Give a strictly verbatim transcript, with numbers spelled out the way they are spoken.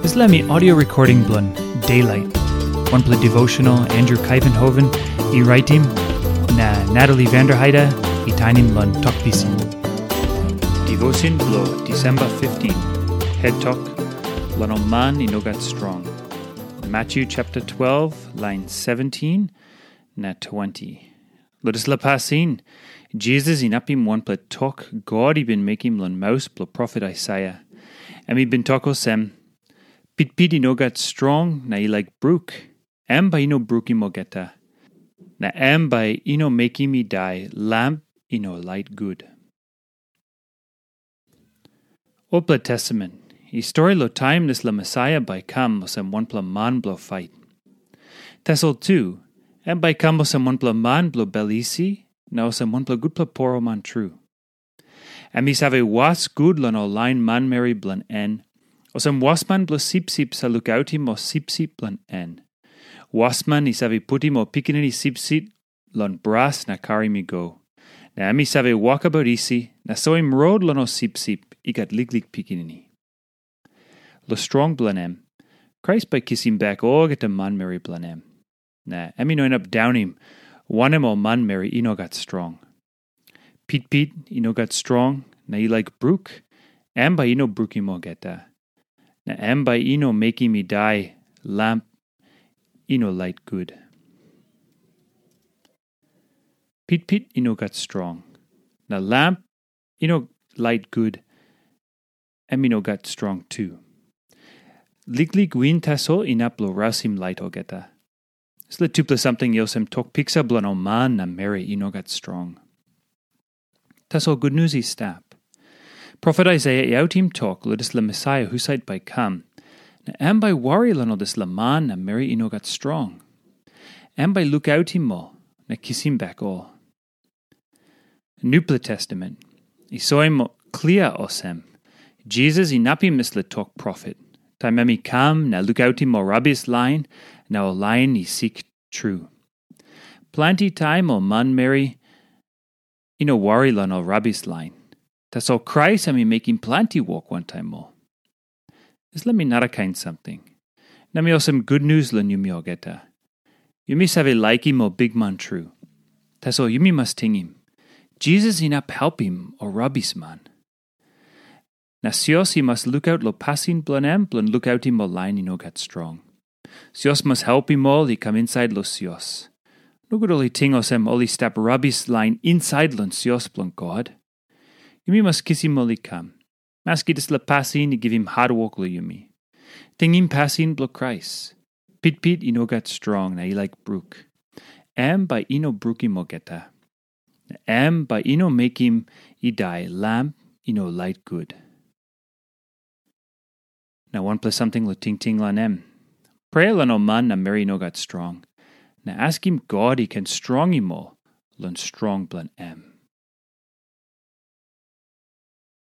Dispela mi audio recording bilong Daylight, wanpela devotional Andrew Kaivenhoven i raitim, na Natalie Vanderheide i tainim long Tok Pisin. Devotion bilong December fifteen, head tok, long ol man i no gat strong. Matthew chapter twelve, line seventeen na twenty. Long dispela pasin, Jisas inapim wanpela tok God i bin mekim long maus bilong profet Aisaia. Em i bin tok olsem, "Pitpit i no gat strong na i laik bruk, em bai i no brukim olgeta. Na em bai i no mekim i dai lamp i no lait gut." Olpela Testamen i stori long taim dispela Mesaia bai i kam olsem wanpela man bilong fait. Tasol tu, em bai i kam olsem wanpela man bilong bel isi, na olsem wanpela gutpela poroman tru. Em i save was gut long ol lain manmeri bilong en, olsem wasman bilong sipsip save lukautim ol sipsip bilong en. Wasman i save putim ol pikinini sipsip long bras na karim i go. Na em i save wokabaut isi na soim rot long ol sipsip i gat liklik pikinini. Long strong bilong em, Krais bai i kisim bek olgeta manmeri bilong em. Na em i no inap daunim wanem ol manmeri i no gat strong. Pitpit i no gat strong na i laik bruk, em bai i no brukim olgeta. Na em bai i no mekim i dai lamp i no lait gut. Pitpit i no gat strong, na lamp i no lait gut, em i no gat strong tu. Liklik win tasol inap long rausim lait olgeta. Dispela tupela samting i olsem tok piksa bilong ol man na meri i no gat strong. Tasol gutnius i stap. Profet Aisaia i autim tok long dispela Mesaia husat bai i kam, na em bai i wari long ol dispela man na meri i no gat strong. Em bai i lukautim ol na kisim bek ol. Nupela Testamen i soim klia olsem, Jisas inapim dispela tok profet, taim em i kam na lukautim ol rabis lain na ol lain i sik tru. Planti taim ol manmeri i no wari long ol rabis lain. Tasol Krais em i mekim planti wok wantaim ol. Dispela mi narakain samting. Na mi olsem gutnius long yumi olgeta. Yumi save laikim ol bikman tru. Tasol yumi mas tingim, Jisas inap helpim ol rabisman. Na sios i mas lukaut long pasin bilong em bilong lukautim ol lain i no gat strong. Sios mas helpim ol i kam insait long sios. Nogut ol i ting olsem ol i stap rabis lain insait long sios bilong God. Yumi mas kisim ol i kam, maski dispela pasin i givim hatwok long yumi. Tingim pasin bilong Krais. Pitpit i no gat strong na i laik bruk. Em bai i no brukim olgeta. Na em bai i no mekim i dai lamp i no lait gut. Na wanpela samting long tingting long em. Prea long ol man na meri i no gat strong, na askim God i ken strongim ol long strong bilong em.